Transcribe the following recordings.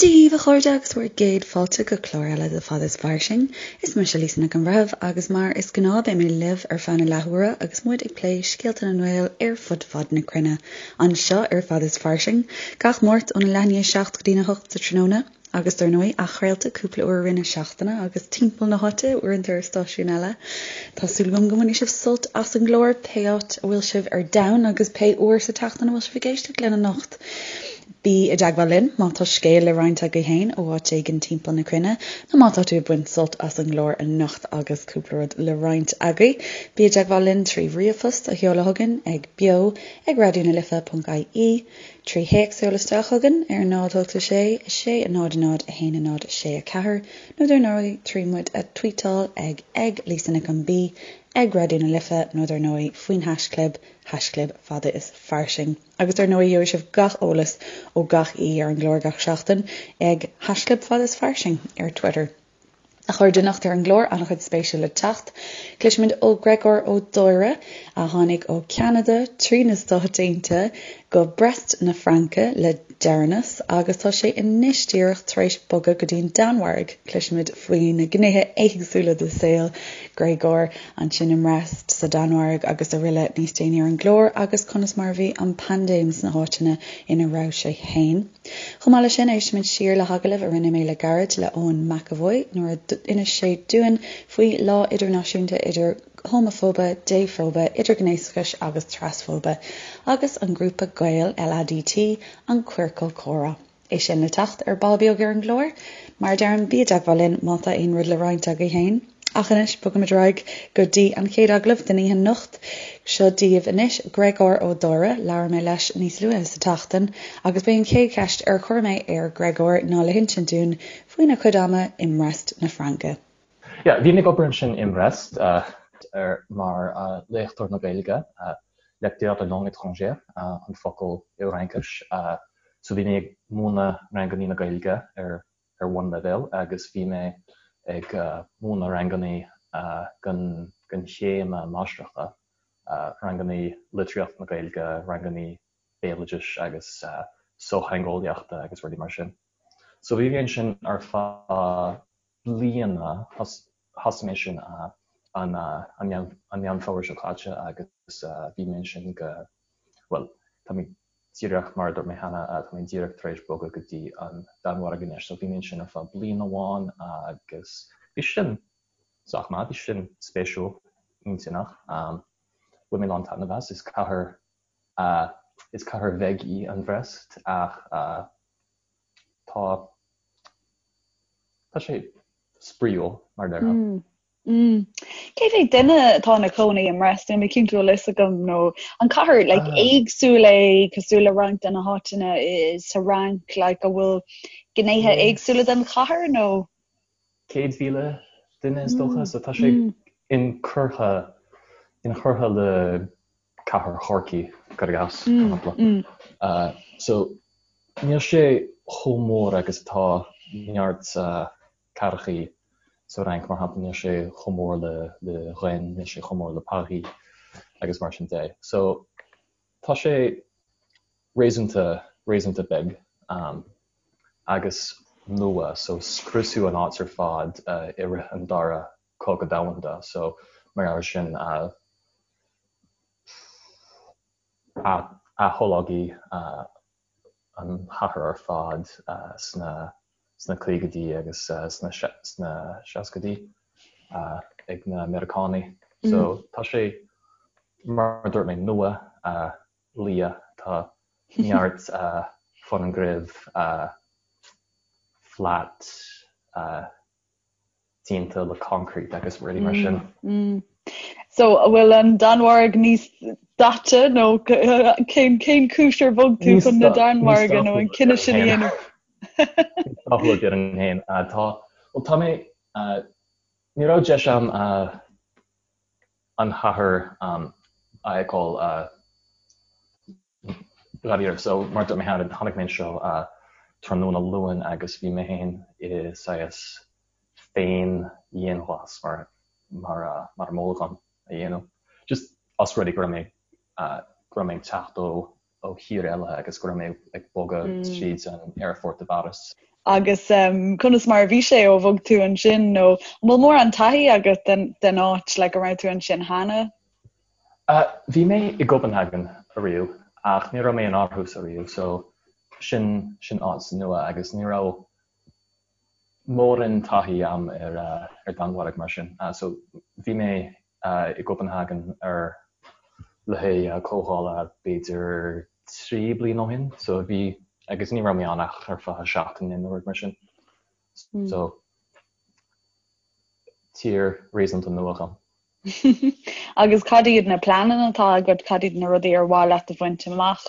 Dia daoibh a chairde agus bhur gcéad fáilte go clár eile de Fada is Fairsing. Is mise Lisa Nic an Bhreithimh agus mar is gnáth beidh mé libh ar feadh na leathuaire agus muid ag plé scéalta na nGael ar fud fad na cruinne anseo ar Fada is Fairsing gach Máirt óna leath i ndiaidh 7 go dtína 8 sa tráthnóna agus dar ndóigh athchraolta cúpla uair i rith na seachtaine agus timpeall na háite uaireanta ar stáisiúin eile. Tá súil agam go mbainfidh sibh sult as an gclár pé áit a bhfuil sibh ar domhan agus pé uair sa tseachtain a bhfuil sibh ag éisteacht linn anocht. Bí i dteagmháil linn má tá scéal le roinnt agaibh féin ó áit éigin timpeall na cruinne, nó má tá tú ag baint sult as an gclár anocht agus cúpla rud le roinnt agaibh. Bí i dteagmháil linn trí ríomhphost a sheoladh chugainn ag beo ag raidionalife.ie, trí théacs a sheoladh isteach chugainn ar 0 8 6 6 0 0 1 0 6 4, nó dar ndóigh trí muid a tvuíteáil ag ag Lisa Nic an B, ag Raidió na Life nó dar ndóigh faoin haischlib, haischlib fada is fairsing. Agus dar ndóigh gheobhaidh sibh gach eolas ó gach aoi ar an gclár gach seachtain ag haischlib fada is fairsing ar Twitter. A chairde anocht ar an gclár, an-chuid spéisiúil le teacht. Cloisfimid ó Gregor Ó Dáire, a tháinig ó Cheanada trí na Stáit Aontaithe go Brest na Fraince le deireanas agus tá sé anois díreach tar éis bogadh go dtí an Danmhairg. Cloisfimid faoi na gnéithe éagsúla de saol Gregor ansin i mBrest, sa Danmhairg agus aroile níos déanaí ar an gclár agus conas mar a bhí an paindéim sna háiteanna ina raibh sé féin. Chomh maith leis sin, éistfimid siar le hagallamh a rinne mé le gairid le Eoin McEvoy nuair a d'inis sé dúinn faoi Lá Idirnáisiúnta idir Homafóibe, Défhóibe, Idirghnéasachais agus Trasfóibe agus an grúpa Gael, LADT, an Queercal Comhrá. É sin le teacht ar ball beag ar an gclár. Mar a deirim, bí i dteagmháil linn má tá aon rud le roinnt agaibh féin. Ach anois, bogaimid ar aghaidh go dtí an chéad agallamh den oíche anocht. Seo daoibh anois Gregor Ó Dáire. Labhair mé leis níos luaithe sa tseachtain agus b'é an chéad cheist ar chuir mé ar Gregor ná le hinsint dúinn faoina chuid ama i mBrest na Fraince. Yeah, bhí mé ag obair ansin i mBrest mar léachtóir na Gaeilge, lecteur de langue étrangère an focal i bhFraincis. So bhí mé ag múineadh rangannaí na Gaeilge ar ar bhunleibhéal agus bhí mé ag múineadh rangannaí den den chéim máistreachta, rangannaí litríocht na Gaeilge, rangannaí béaloidis agus sochtheangeolaíochta agus rudaí mar sin. So bhí mé ansin ar feadh bliana, thosaigh mé sin an Meán Fómhair seo caite agus bhí mé ansin go, bhuel, tá mé díreach, mar a dúirt mé cheana, tá mé díreach tar éis bogadh go dtí an Danmhairg anois, so bhí mé ansin ar feadh bliain amháin agus bhí sin sách maith, bhí sin spéisiúil, intinneach, bhain mé a lán taitneamh as, is cathair, is cathair bheag í an Bhrest ach tá, Tá sé spraíúil, mar a déarfá. Cé mhéad duine atá ina cónaí i mBrest? Níl mé cinnte bhfuil fhios agam nó an cathair like, ah. éagsúil é cosúil le roinnt de na háiteanna sa Fhrainc like, a bhfuil gnéithe éagsúla den chathair nó? 100,000 duine is dócha, so tá sé inchurtha inchurtha le cathair Chorcaí, cuir i gcás, mar shampla. So, níl sé chomh mór agus atá neart cathrachaí sa Fhrainc, mar shampla, níl sé chomh mór le le Rennes, níl sé chomh mór le Paris agus mar sin de. So, tá sé réasúnta, réasúnta beag agus nua, so scriosadh an áit ar fad i rith an dara Cogadh Domhanda, so mar gheall air sin aththógadh an chathair ar fad sna sna caogaidí agus sna sna seascaidí ag na Meiriceánaigh. So tá sé, mar a dúirt mé, nua, liath, tá neart foirgnimh flat, déanta le concrete agus rudaí mar sin. So, an bhfuil an Danmhairg níos daite nó cén cén chúis ar bhog tú chun na Danmhairge nó an cinneadh sin a dhéanamh? Níos dathúla déarfainn féin. Tá, bhuel tá mé, ní raibh deis agam an chathair a fheiceáil dáiríre. So, mar a dúirt mé cheana, tháinig mé anseo tráthnóna Luain agus bhí mé féin i saghas féin-dhianghlas mar mar mar a moladh dom a dhéanamh. Just os rud é go raibh mé go raibh mé ag teacht ó ó thír eile agus go raibh mé ag bogadh tríd an aerfort i bPáras. Agus conas mar a bhí sé ó bhog tú ansin nó an bhfuil mórán taithí agat den den áit like an raibh tú ansin cheana? Bhí mé i gCopenhagen ariamh ach ní raibh mé in Aarhus ariamh so sin sin áit nua agus ní raibh mórán taithí a'm ar ar Danmhairg mar sin. So bhí mé i gCopenhagen ar le haghaidh comhdhála b'fhéidir 3 bliain ó shin so bhí agus ní raibh mé ann ach ar feadh seachtaine nó rud mar sin. So tír réasúnta nua dhom. Agus cad iad na pleananna atá agat, cad iad na rudaí ar mhaith leat a bhaint amach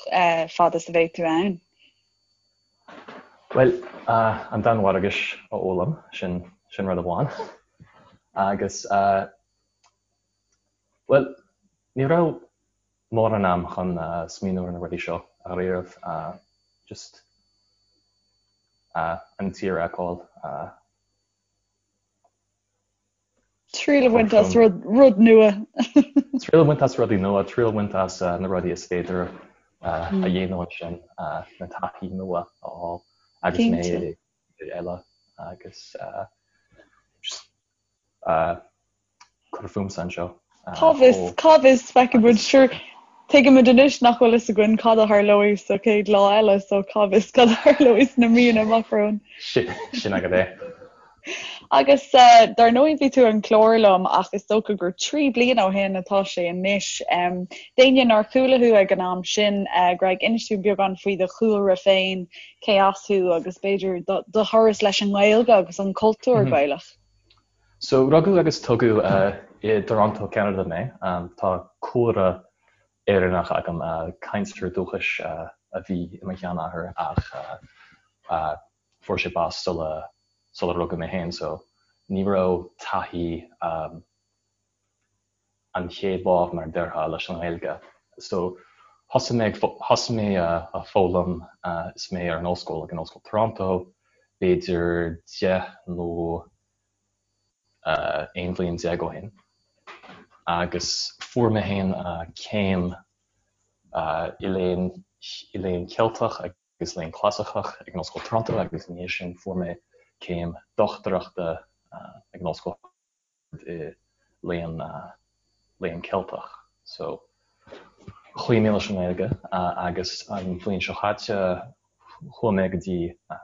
fad is a bheidh tú ann? Bhuel, an Danmhairgis a fhoghlaim, sin sin rud amháin. Agus, bhuel, ní raibh mórán am chun smaoineamh ar na rudaí seo ariamh, just an tír a fheiceáil. Triail a bhaint as rud nua. Triail a bhaint as rudaí nua, triail a bhaint as na rudaí is féidir a dhéanamh ansin, na taithí nua a fháil agus mé i dtír eile agus just cur fúmsa anseo. Cá bhfios, cá bhfios, feicfidh muid, sure, tuigimid anois nach bhfuil fhios againn cad a tharlóidh sa chéad lá eile, so cá bhfios cad a tharlóidh sna míonna amach romhainn. Sin agat é. Agus dar ndóigh bhí tú ar an chlár liom ach is dócha gur 3 bliana ó shin atá sé anois. D'éinne nár chuala thú ag an am sin, Greg, inis dúinn beagán faoi do chúlra féin, cé as thú agus b'fhéidir do thuras leis an nGaeilge agus an cultúr Gaelach. So, rugadh agus tógadh i dToronto, Ceanada mé. Tá cúlra Éireannach agam, cainteoir dúchais a bhí i mo sheanathair ach fuair sé bás sula sula rugadh mé féin so ní raibh taithí an chéad lámh mar a déarfá leis an nGaeilge. So thosaigh mé ag thosaigh mé a foghlaim is mé ar an ollscoil ag an Ollscoil Toronto b'fhéidir 10 nó 11 bhliain ó shin agus fuair mé féin céim i léann i léann Ceilteach agus léann Clasaiceach ag an Ollscoil Toronto agus ina dhiaidh sin fuair mé céim dochtúireachta ag an Ollscoil i léann léann Ceilteach. So chloígh mé leis an nGaeilge agus an bhliain seo chaite chuaigh mé go dtí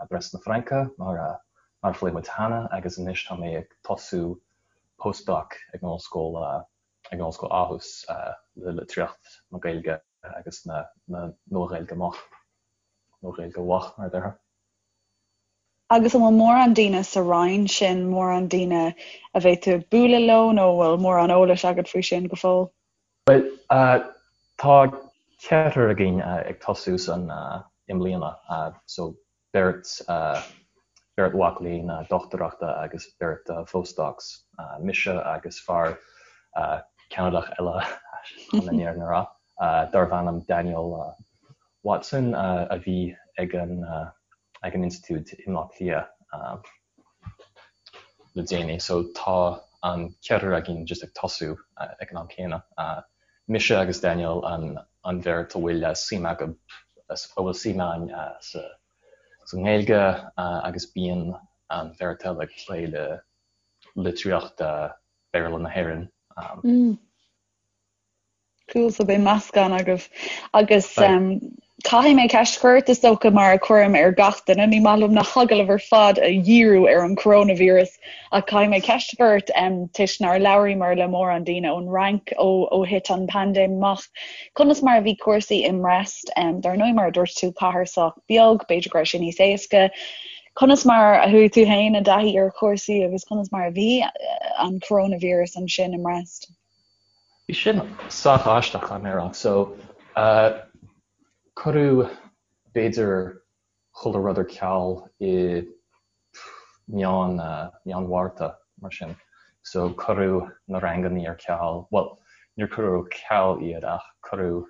Brest na Fraince mar mar a phléigh muid cheana agus anois tá mé ag tosú postdoc ag an ollscoil ag an Ollscoil Aarhus le litríocht na Gaeilge agus na na Nua-Ghaeilge Moch, Nua-Ghaeilge Mhoch mar a déarfá. Agus an bhfuil mórán daoine sa roinn sin, mórán daoine a bheidh tú ag bualadh leo nó an bhfuil mórán eolais agat faoi sin go fóill? Bhuel, tá ceathrar againn ag tosú san i mbliana, so beirt, beirt mhac léinn dochtúireachta agus beirt phostdocs, mise agus fear Ceanadach eile chun an fhírinne a rá, darbh ainm Daniel Watson a bhí ag an ag an institiúid i mBaile Átha Cliath le déanaí. So tá an ceathrar againn just ag tosú ag an am céanna. Mise agus Daniel an an bheirt a bhfuil suim acu a bhfuil suim againn sa sa nGaeilge agus bíonn an bheirt eile ag plé le litríocht Béarla na hÉireann. Cool, so beidh meascán agaibh. Agus caithfidh mé ceist a chur ort, is dócha, mar a chuirim ar gach duine, ní maith liom na hagallaimh ar fad a dhíriú ar an coronavirus, ach caithfidh mé ceist a chur ort toisc nár labhraíomar le mórán daoine ón Fhrainc ó ó thit an paindéim amach. Conas mar a bhí cúrsaí i mBrest? Dar ndóigh, mar a dúirt tú, cathair sách beag, b'fhéidir go raibh sé níos éasca. Conas mar a chuaigh tú féin i dtaithí ar chúrsaí agus conas mar a bhí an coronavirus ansin i mBrest? Bhí sin sách aisteach, caithfidh mé a rá. So, cuireadh b'fhéidir chuile rud ar ceal i meán, meán Mhárta, mar sin. So, cuireadh na rangannaí ar ceal, bhuel, níor cuireadh ar ceal iad ach cuireadh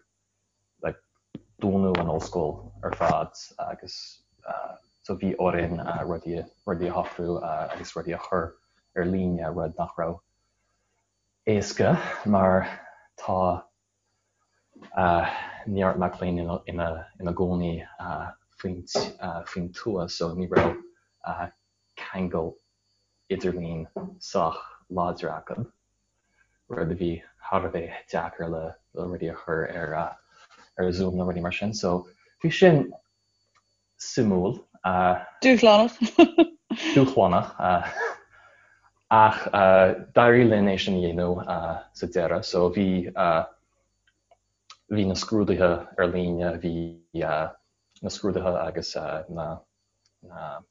like dúnadh an ollscoil ar fad agus so bhí orainn rudaí, rudaí a shocrú agus rudaí a chur ar líne, rud nach raibh éasca mar tá neart mac léinn ina gcónaí faoin tuath so ní raibh ceangal idirlín sách láidir acu, rud a bhí thar a bheith deacair le rudaí a chur ar ar Zoom nó rudaí mar sin. So bhí sin suimiúil. Dúshlánach. Dúshlánach. Ach d'éirigh linn é sin a dhéanamh sa deireadh. So bhí bhí na scrúduithe ar líne, bhí na scrúduithe agus na na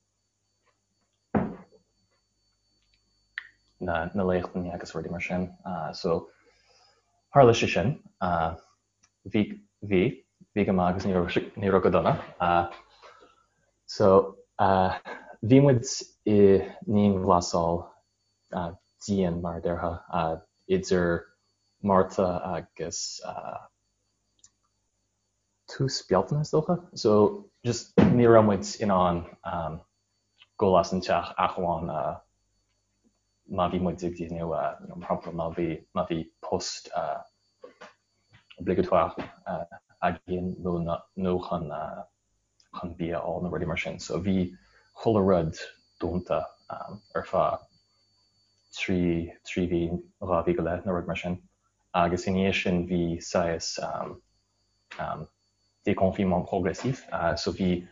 na na léachtanna agus rudaí mar sin. So tharla sé sin. Bhí bhí bhí go maith agus ní raibh ní raibh go dona. So bhí muid i ndianghlasáil dian mar a déarfá idir Márta agus tús Bealtaine is dócha. So just ní raibh muid in ann dul as an teach ach amháin má bhí muid ag déanamh mar shampla má bhí má bhí post obligatoire againn nó nó chun chun bia a fháil nó rudaí mar sin. So bhí chuile rud dúnta ar feadh 3 3 mhí, 2 mhí go leith nó rud mar sin. Agus i ndiaidh sin bhí saghas déconfinement progressif, so bhí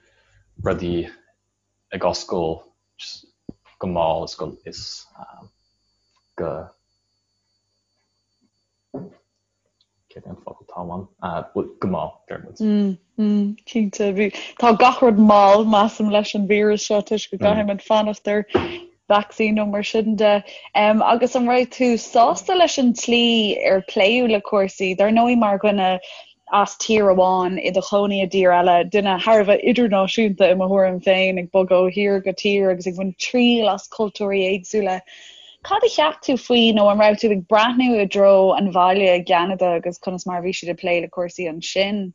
rudaí ag oscailt go mall is go is go céard é an focal atá uaim? Go mall, deir muid. Cinnte, bhí tá gach rud mall measaim leis an víreas seo toisc go gcaithfidh muid fanacht ar vacsaín nó mar sin de. Agus an raibh tú sásta leis an tslí ar pléadh le cúrsaí? Dar ndóigh mar dhuine as tír amháin i do chónaí i dtír eile, duine thar a bheith idirnáisiúnta i mo thuairim féin, ag bogadh ó thír go tír agus ag baint triail as cultúirí éagsúla. Cad a cheap tú faoi nó an raibh tú ag breathnú i dtreo an bhaile i gCeanada agus conas mar a bhí siad ag plé le cúrsaí ansin?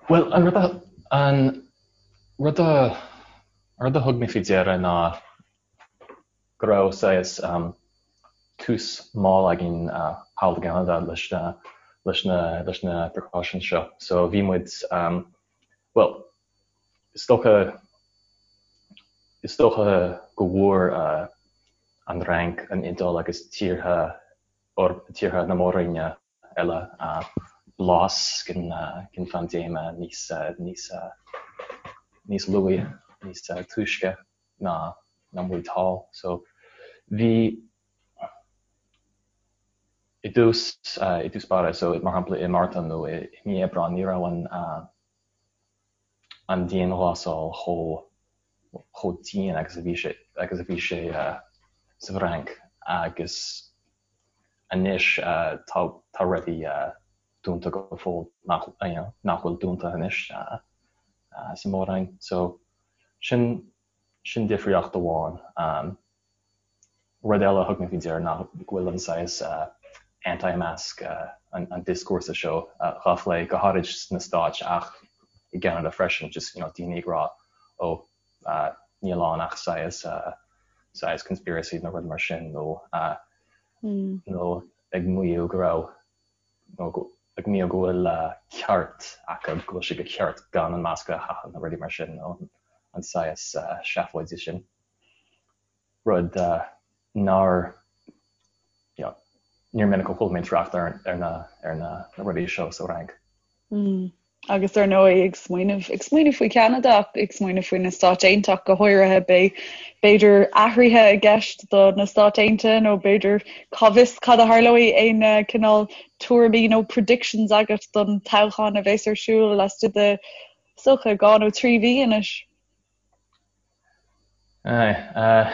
Bhuel, an rud a, an rud a, an rud a thug mé faoi deara ná go raibh saghas tús mall againn thall i gCeanada leis na, leis na, leis na precautions seo. So bhí muid, bhuel, is dócha, is dócha go bhfuair an Fhrainc, an Iodáil agus tíortha, tíortha na Mór-Roinne eile blas den phaindéime níos níos níos luaithe, níos túisce ná ná muid thall. So bhí i dtús i dtús báire, so mar shampla i Márta nó i mí Aibreáin ní raibh an an dianghlasáil chomh chomh dian agus a bhí sé agus a bhí sé sa bhFrainc agus Anois tá tá rudaí dúnta go fóill nach you know nach bhfuil dúnta anois sa Mhór-Roinn. So sin sin difríocht amháin. Rud eile a thug mé faoi deara ná go bhfuil an saghas anti-mask an an dioscúrsa seo dhá phlé go háirid sna Stáit ach i gCeanada freisin just you know daoine ag rá ó níl ann ach saghas saghas conspiracy nó rud mar sin nó nó ag maíomh go raibh nó ag maíomh go bhfuil ceart acu, go bhfuil sé go ceart gan an masca a chaitheamh nó rudaí mar sin nó an saghas seafóide sin. Rud nár you know níor minic a chuala mé trácht ar ar na ar na rudaí seo sa Fhrainc. Agus ar ndóigh, ag smaoineamh, ag smaoineamh faoi Cheanada ach ag smaoineamh faoi na Stáit Aontaithe ach go háirithe, beidh, b'fhéidir, athruithe i gceist do na Stáit Aontaithe nó b'fhéidir, cá bhfios cad a tharlóidh, aon cineál tuairimí nó predictions agat don toghchán a bheas ar siúl laistigh de, is dócha, 2 nó 3 mhí anois? Aye, uh.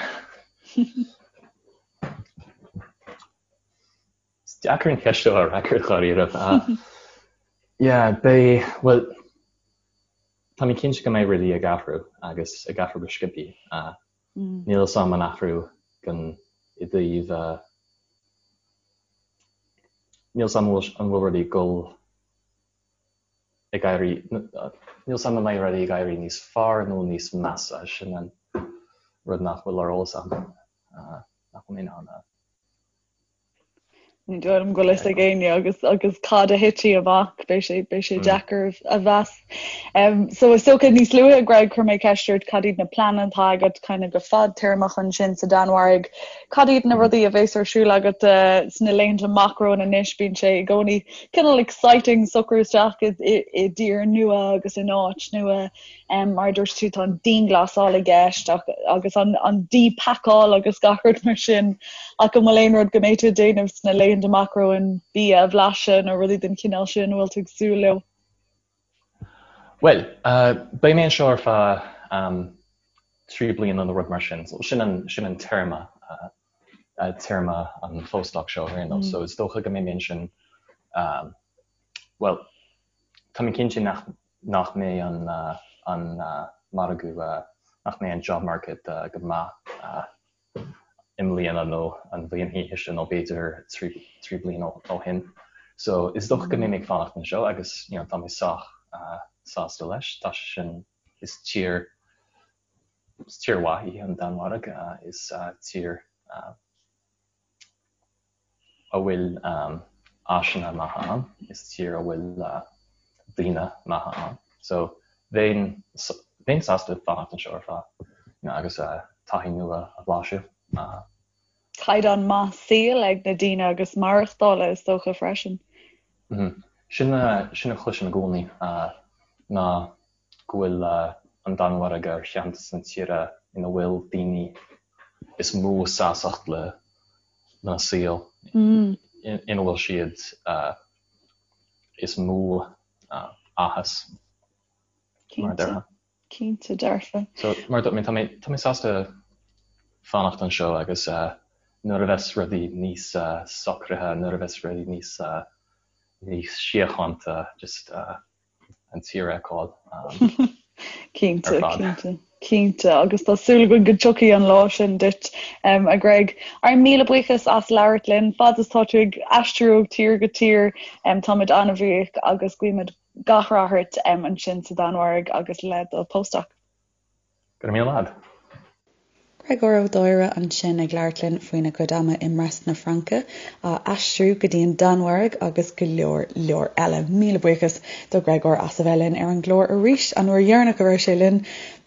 Is deacair an cheist seo a fhreagairt dháiríre. Yeah, beidh, bhuel, tá mé cinnte go mbeidh rudaí ag athrú agus ag athrú go sciobthaí. Níl a fhios agam an athrú gan i dtaobh, níl a fhios agam an bhfuil rudaí ag dul ag éirí, níl a fhios agam an mbeidh rudaí ag éirí níos fearr nó níos measa, sin an rud nach bhfuil ar eolas agam, nach bhfuil mé in ann a. Ní dóigh liom go bhfuil fhios ag éinne agus agus cad a thitfidh amach, beidh sé beidh sé deacair a mheas. So is dócha níos luaithe Greg chuir mé ceist ort cad iad na pleananna atá agat kind of go fadtéarmach ansin sa Danmhairg. Cad iad na rudaí a bheas ar siúl agat sna laethanta amach romhainn anois? Bíonn sé i gcónaí cineál exciting socrú isteach i i dtír nua agus in áit nua. Mar a dúirt tú tá an dianghlasáil i gceist ach agus an an díphacáil agus gach rud mar sin ach an bhfuil aon rud go mbeidh tú ag déanamh sna laethanta amach romhainn, bia a bhlaiseadh nó rudaí den chineál sin a bhfuil tú ag súil leo? Bhuel, beidh mé anseo ar feadh 3 bliana nó rud mar sin, so sin an sin an téarma, téarma an phostdoc seo ar aon nós, so is dócha go mbeidh mé ansin, bhuel, tá mé cinnte nach nach mbeidh an an margadh, nach mbeidh an job market go maith i mbliana nó an bhliain ina dhiaidh sin nó b'fhéidir 3 bliana ó shin. So is dócha go mbeidh mé ag fanacht anseo agus you know tá mé sách sásta leis. Tá sé sin, is tír, is tír mhaith í an Danmhairg, is tír a bhfuil áiseanna maithe ann, is tír a bhfuil daoine maithe ann. So bheinn, bheinn sásta fanacht anseo ar feadh you know agus taithí nua a bhlaiseadh. Caighdeán maith saoil ag na daoine agus maireachtála is dócha freisin. Sin a, sin a chloisim i gcónaí ná go bhfuil an Danmhairg ar cheann de na tíortha ina bhfuil daoine is mó sástacht le lena saol, ina bhfuil siad is mó áthas, mar a déarfá. Cinnte dearfa. So, mar a dúirt mé, tá mé, tá mé sásta fanacht anseo agus nuair a bheas rudaí níos socraithe, nuair a bheas rudaí níos, níos síochánta, just an tír a fheiceáil Cinnte, ar fad. cinnte, cinnte, agus tá súil againn go dtiocfaidh an lá sin duit, a Greg. Ár míle buíochas as labhairt linn, fad is tá tú ag aistriú ó tír go tír, táimid an-bhuíoch agus guímid gach rath ort ansin sa Danmhairg agus le do postdoc. Go raibh míle maith agat. Gréagóir Ó Dóire ansin ag labhairt linn faoina chuid ama i mBrest na Fraince, á aistriú go dtí an Danmhairg agus go leor leor eile. Míle buíochas do Ghréagóir as a bheith linn ar an gclár arís, an uair dheireanach a raibh sé linn,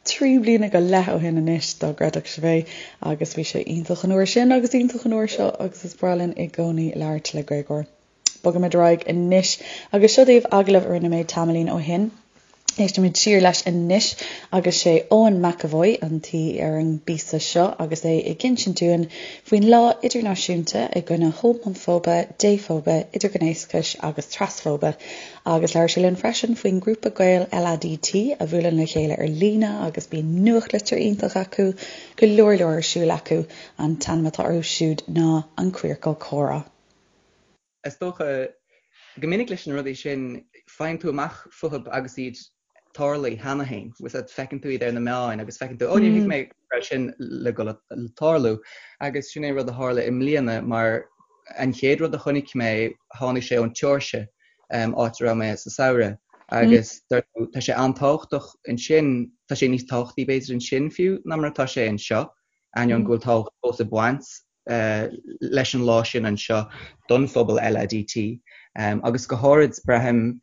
3 bliana go leith ó shin anois, dá gcreidfeadh sibh é, agus bhí sé iontach an uair sin agus iontach an uair seo agus is breá linn i gcónaí labhairt le Gréagóir. Bogaimid ar aghaidh anois agus seo daoibh agallamh a rinne mé tamaillín ó shin. Éistfimid siar leis anois agus sé Eoin McEvoy an t-aoi ar an bpíosa seo agus é ag insint dúinn faoin Lá Idirnáisiúnta i gcoinne Homafóibe, Défhóibe, Idirghnéasachais agus Trasfóibe agus labhair sé linn freisin faoin ngrúpa Gael LADT a bhuaileann le chéile ar líne agus bíonn nuachtlitir iontach acu, go leor leor ar siúl acu. An t-ainm atá orthu siúd ná An Queercal Comhrá. Is dócha, go minic leis na rudaí sin, faigheann tú amach fúthu agus iad tarlaithe cheana féin. Bhfuil a fhios agat, feiceann tú iad ar na meáin agus feiceann tú, 'Ó, níor thuig mé go raibh sin le dul a tarlú. Agus sin é rud a tharla i mbliana mar an chéad rud a chonaic mé, tháinig sé ón tSeoirsia, áit a raibh mé sa samhradh. Agus tá sé an-tábhachtach ansin, tá sé níos tábhachtaí b'fhéidir ansin fiú ná mar atá sé anseo, ainneoin go bhfuil tábhacht fós ag baint leis an lá sin anseo don phobal LADT agus go háirid, braithim,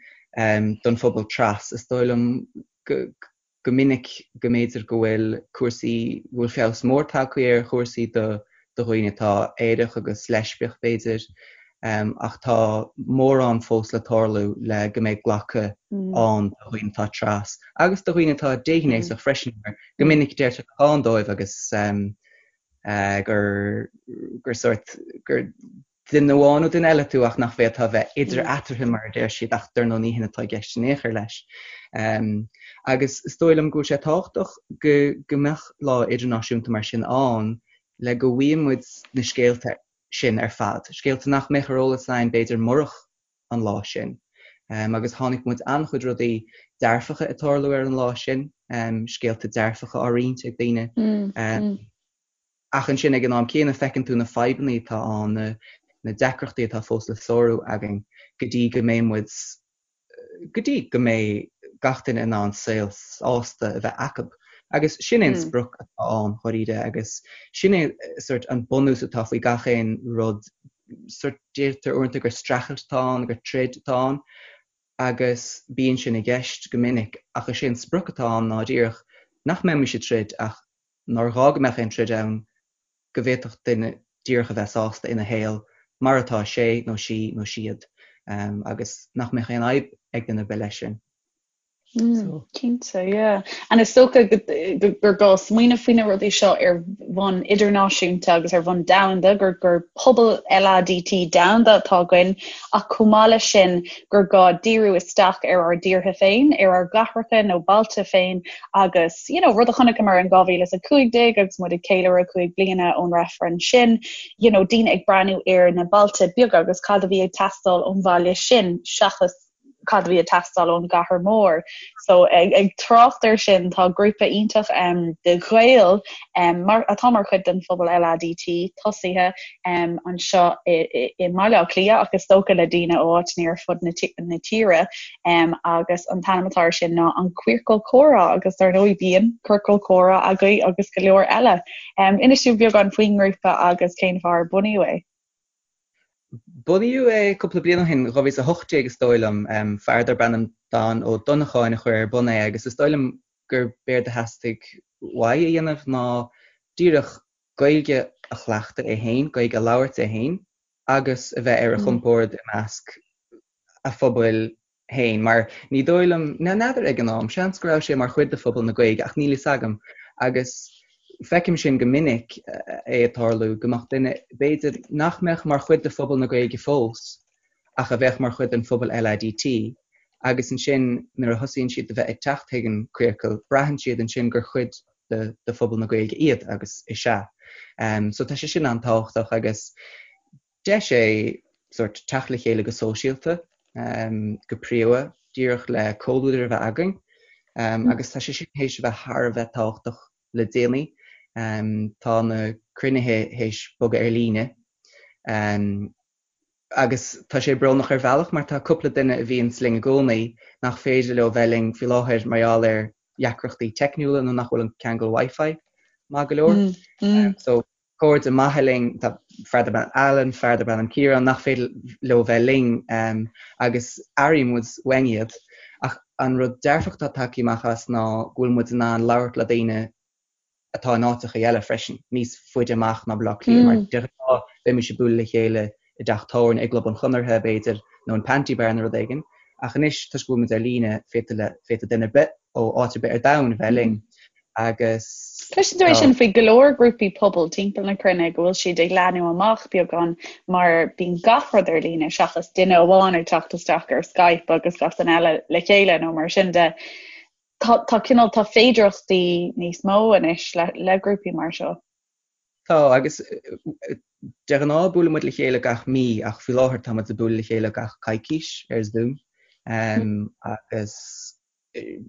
don phobal tras. Is dóigh liom go minic go mb'fhéidir go bhfuil cúrsaí, go bhfuil feabhas mór tagtha ar chúrsaí do dhaoine atá aerach agus leispiach, b'fhéidir, ach tá mórán fós le tarlú le go mbeidh glacadh ann do dhaoine atá tras agus do dhaoine atá déghnéasach freisin, mar go minic deirtear nach ann dóibh agus gur gur sórt gur duine amháin nó duine eile tú ach nach bhféadfá a bheith idir eatarthu mar a deir siad ach dar ndóigh ní hin atá i gceist in aon chor leis. Agus is dóigh liom go bhfuil sé tábhachtach go go mbeadh lá idirnáisiúnta mar sin ann le go bhfaigheann muid na scéalta sin ar fad, scéalta nach mbeadh ar eolas againn b'fhéidir murach an lá sin. Agus chonaic muid an-chuid rudaí dearfacha ag tarlú ar an lá sin, scéalta dearfacha á roinnt ag daoine. Ach ansin ag an am céanna feiceann tú na fadhbanna atá ann, na deacrachtaí atá fós le sárú againn go dtí go mbeidh muid, go dtí go mbeidh gach duine in ann saol sásta a bheith acu. Agus sin é an sprioc atá ann, dháiríre, agus sin é sort an bunús atá faoi gach aon rud. Sort deirtear uaireanta gur streachailt atá ann, gur troid atá ann agus bíonn sin i gceist go minic ach is é an sprioc atá ann ná díreach nach mbeimis ag troid ach nár ghá go mbeadh aon troid ann, go bhféadfadh duine díreach a bheith sásta ina shaol mar atá sé nó sí nó siad agus nach mbeadh aon fhadhb ag duine ar bith leis sin. Mm, cinnte, yeah. And is dócha gur gá smaoineamh faoi na rudaí seo ar bhonn idirnáisiúnta agus ar bhonn domhanda, gur gur pobal LADT domhanda atá againn, ach chomh maith leis sin gur gá díriú isteach ar ár dtíortha féin, ar ár gcathracha nó bailte féin agus, you know, rud a chonaiceamar in 2015 agus muid ag ceiliúradh 5 bliana ón reifreann sin, you know, daoine ag breathnú ar na bailte beaga agus cad a bhí ag teastáil ón bhaile sin seachas cad a bhí ag teastáil ón gcathair mhór. So ag, ag trácht air sin tá grúpa iontach um, de Ghaeil um, mar, atá mar chuid den phobal LADT tosaithe um, anseo i, i, i mBaile Átha Cliath ach is dócha le daoine ó áiteanna ar fud na, na tíre um, agus an t-ainm atá air sin ná an Queercal Comhrá agus dar ndóigh bíonn Ciorcal Comhrá agaibh agus go leor eile. Um, inis dúinn beagán faoin ngrúpa agus cén fáth ar bunaíodh é. Bunaíodh é cúpla bliain ó shin, 2018 is dóigh liom. Fear darb ainm Dan Ó Donnacháin a chuir ar bun é agus is dóigh liom gur b'éard a theastaigh uaidh a dhéanamh ná díreach Gaeilge a chleachtadh é féin, Gaeilge a labhairt é féin agus a bheith ar a chompord i measc a phobail féin, mar ní dóigh liom, n'fheadar ag an am, seans go raibh sé mar chuid de phobal na Gaeilge ach níl fhios agam agus feicim sin go minic é ag tarlú, go mbeadh duine, b'fhéidir, nach mbeadh mar chuid de phobal na Gaeilge fós ach a bheadh mar chuid den phobal LADT agus ansin nuair a thosaíonn siad a bheith ag teacht chuig an Queercal, braitheann siad ansin gur chuid de de phobal na Gaeilge iad agus is ea. So tá sé sin an-tábhachtach agus Deis é sórt teacht le chéile go sóisialta, go príomha, díreach le comhluadar a bheith againn agus tá sé sin théis a bheith thar a bheith tábhachtach le déanaí. Tá na cruinnithe théis bogadh ar líne agus tá sé brónach ar bhealach mar tá cúpla duine a bhíonns linn i gcónaí nach féidir leo bheith linn faoi láthair mar gheall ar dheacrachtaí teicniúla nó nach bhfuil an ceangal Wi-Fi maith go leor. So cairde maithe linn, tá fear darb ainm Alan, fear darb ainm Ciarán, nach féidir leo bheith linn agus airíonn muid uainn iad. Ach an rud dearfach atá tagtha amach as ná go bhfuil muid in ann labhairt le daoine atá in áiteacha eile freisin, níos faide amach ná Baile Átha Cliath, mar de ghnáth bheimis ag bualadh le chéile i dteach tábhairne, i gClub an Chonartha, b'fhéidir, nó in Panti Bar nó rud éigin. Ach anois, toisc go bhfuil muid ar líne, féadfaidh duine ar bith ó áit ar bith ar domhan a bheith linn. Agus Cloiseann tú é sin faoi go leor grúpaí pobail timpeall na cruinne go bhfuil siad ag leathnú amach beagán mar bíonn gach rud ar líne seachas duine amháin ag teacht isteach ar Skype agus gach duine eile le chéile nó mar sin de. Tá tá cineál tá féidearthachtaí níos mó anois le le grúpaí mar seo. Tá agus de ghnáth buaileann muid le chéile gach mí ach faoi láthair tá muid ag bualadh le chéile gach coicís ar Zoom agus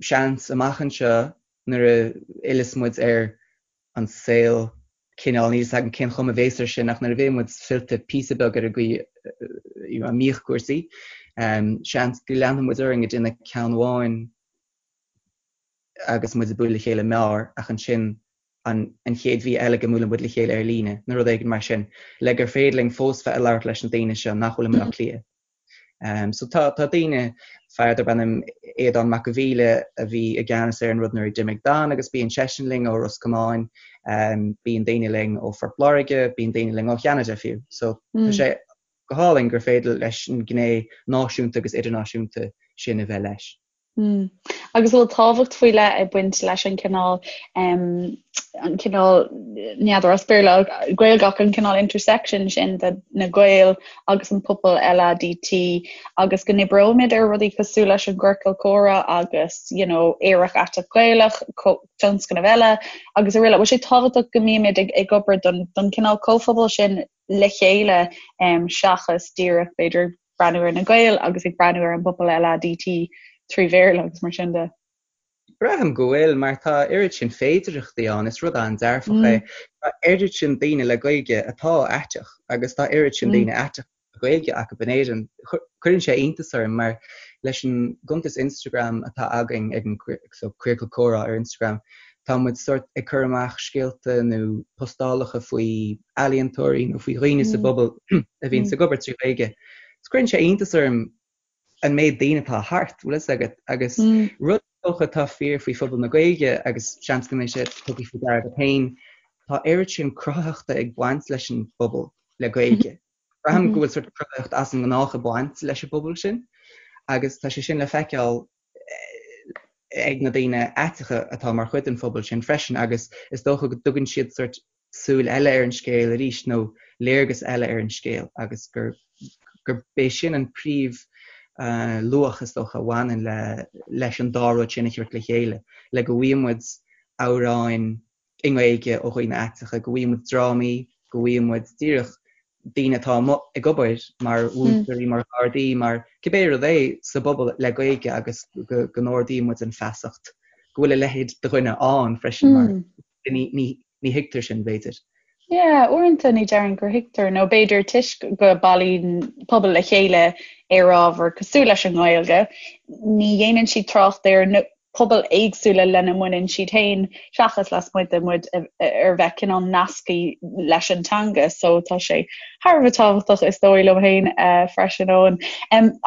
seans amach anseo nuair a fhilleas muid ar an saol cineál, níl 'fhios agam cén chuma a bhéas air sin ach nuair a bheidh muid fillte píosa beag ar an gcaoi a mbíodh cúrsaí, seans go leanfaidh muid orainn ag déanamh ceann amháin agus muid ag bualadh le chéile mear ach ansin an an chéad mhí eile go mbuaileann muid le chéile ar líne nó rud éigin mar sin le gur féidir linn fós bheith ag labhairt leis na daoine seo nach bhfuil i mBaile Átha Cliath. So tá tá daoine, fear darb ainm Aodán Mac a' Mhíle a bhí i gceannas ar an rud nuair a d'imigh Dan agus bíonn seisean linn ó Ros Comáin, bíonn daoine linn ó Phort Láirge, bíonn daoine linn ó Cheanada fiú. So tá sé go hálainn gur féidir leis an gné náisiúnta agus idirnáisiúnta sin a bheith leis. Mm. Agus bhfuil tábhacht faoi leith ag baint leis an cineál an cineál n'fheadar as Béarla Gaeilge ach an cineál intersection sin de na Gaeil agus an pobal LADT agus go n-oibreoimid ar rudaí cosúil leis an gciorcal comhrá agus you know, Aerach Aiteach Gaelach, tionscnamh eile agus araile. Bhfuil sé tábhachtach go mbímid ag, ag obair don, don cineál comhphobal sin le chéile um, seachas díreach b'fhéidir breathnú ar na Gaeil agus ag breathnú ar an bpobal LADT 3 Bhéarla agus mar sin de. Braithim go bhfuil, mar tá oiread sin féidearthachtaí ann, is rud an-dearfach é. Tá oiread sin daoine le Gaeilge atá aiteach agus tá oiread sin daoine aiteacha le Gaeilge acu in Éirinn. Cuireann sé iontas orm mar leis an gcuntas Instagram atá againn ag an so Queercal Comhrá ar Instagram, Tá muid sórt ag cur amach scéalta nó postálacha faoi ealaíontóirí nó faoi dhaoine sa bpobal a bhíonns ag obair trí Ghaeilge. Is cuireann sé iontas orm an méid daoine atá thart, bhfuil fhios agat, agus rud is dócha atá fíor faoi phobal na Gaeilge agus seans go mbeidh sé tugtha faoi deara agat féin, tá oiread sin cruthaitheachta ag baint leis an bpobal le Gaeilge. Braithim go bhfuil sórt cruthaitheacht as an ngnách ag baint leis an bpobal sin agus tá sé sin le feiceáil ag na daoine aiteacha atá mar chuid den phobal sin freisin agus is dócha go dtugann siad sórt súil eile ar an scéal arís nó léargas eile ar an scéal agus gur gurb é sin an príomh luach is dócha a bhaineann le leis an dá rud sin a thabhairt le chéile le go bhfaighidh muid amhráin i nGaeilge ó dhaoine aiteacha, go bhfaighidh muid drámaí, go bhfaighidh muid díreach daoine atá amuigh ag obair mar mhúinteoirí, mar ghardaí, mar cibé rud é sa bpobal le Gaeilge agus go n-ardaíonn muid an feasacht go bhfuil a leithéid de dhuine ann freisin mar ní ní thuigtear sin b'fhéidir. Yeah, uaireanta ní déarfainn gur thuigtear nó b'fhéidir toisc go bailíonn pobal le chéile ar ábhar cosúil leis an nGaeilge, ní dhéanann siad trácht ar na pobail éagsúla lena mbaineann siad féin seachas lasmuigh de muid ar bheith cineál nasctha leis an teanga so tá sé thar a bheith tábhachtach is dóigh liom féin freisin Eoin.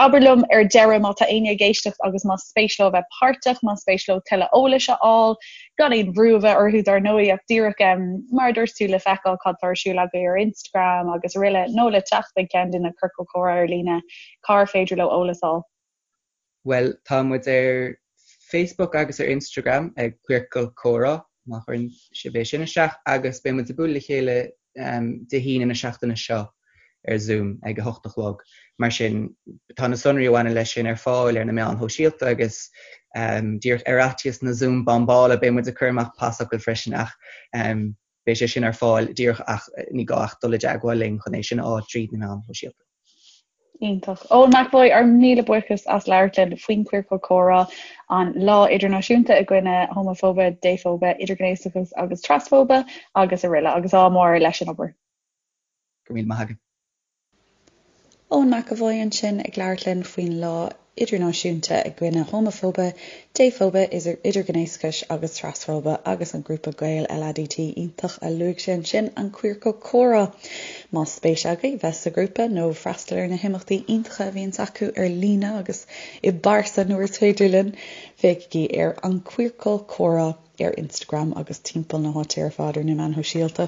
Abair liom ar deireadh má tá éinne ag éisteacht agus más spéis leo a bheith páirteach, más spéis leo tuilleadh eolais a fháil, gan aon bhrú a bheith orthu dar ndóigh ach díreach mar a dúirt tú le feiceáil cad tá ar siúl agaibh ar Instagram agus araile nó le teacht ag ceann de na ciorcail chomhrá ar líne, cár féidir leo eolas a fháil? Bhuel, tá muid ar Facebook agus ar Instagram ag Queercal Comhrá, má chuireann sibh é sin isteach, agus beidh muid ag bualadh le chéile Dé hAoine na seachtaine seo ar Zoom ag a hocht a chlog. Mar sin, tá na sonraí a bhaineann leis sin ar fáil ar na meáin shóisialta agus díreach ar fhaitíos na Zoom bombála beidh muid ag cur amach pasfhocail freisin ach beidh sé sin ar fáil díreach ach ní gá ach dul i dteagmháil linn chun é sin a fháil tríd na meáin shóisialta. Iontach. Eoin McEvoy, ár míle buíochas as labhairt linn faoin Chiorcal Comhrá, an Lá Idirnáisiúnta i gcoinne Homafóibe, Défhóibe, Idirghnéasachais agus Trasfóibe agus araile agus ádh mór leis an obair. Go raibh míle maith agat. Eoin McEvoy ansin ag labhairt linn faoin Lá Idirnáisiúnta i gcoinne Homafóibe, Défhóibe, Idirghnéasachais agus Trasfóibe agus an grúpa Gael LADT iontach a luaigh sé ansin, an Queercal Comhrá. Más spéis agaibh bheith sa ghrúpa nó freastal ar na himeachtaí iontacha a bhíonns acu ar líne agus i bpearsa nuair is féidir linn, féachaigí ar An Queercal Comhrá ar Instagram agus timpeall na háite ar fad ar na meáin shóisialta.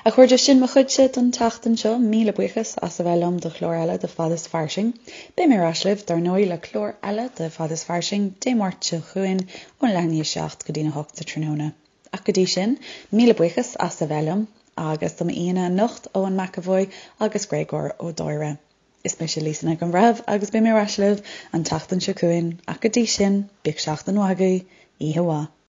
A chairde, sin mo chuidse don tseachtain seo. Míle buíochas as a bheith liom do chlár eile de Fad is Fairsing. Beidh mé ar ais libh, dar ndóigh, le clár eile de Fad is Fairsing Dé Máirt seo chugainn ón leath i ndiaidh 7 go dtí'n 8 sa tráthnóna. Ach go dtí sin, míle buíochas as a bheith liom agus do m'aíonna anocht, Eoin McEvoy agus Gréagóir Ó Dáire. Is mise Lisa Nic an Bhreithimh agus beidh mé ar ais libh an tseachtain seo chugainn ach go dtí sin, bíodh seachtain mhaith agaibh, oíche mhaith.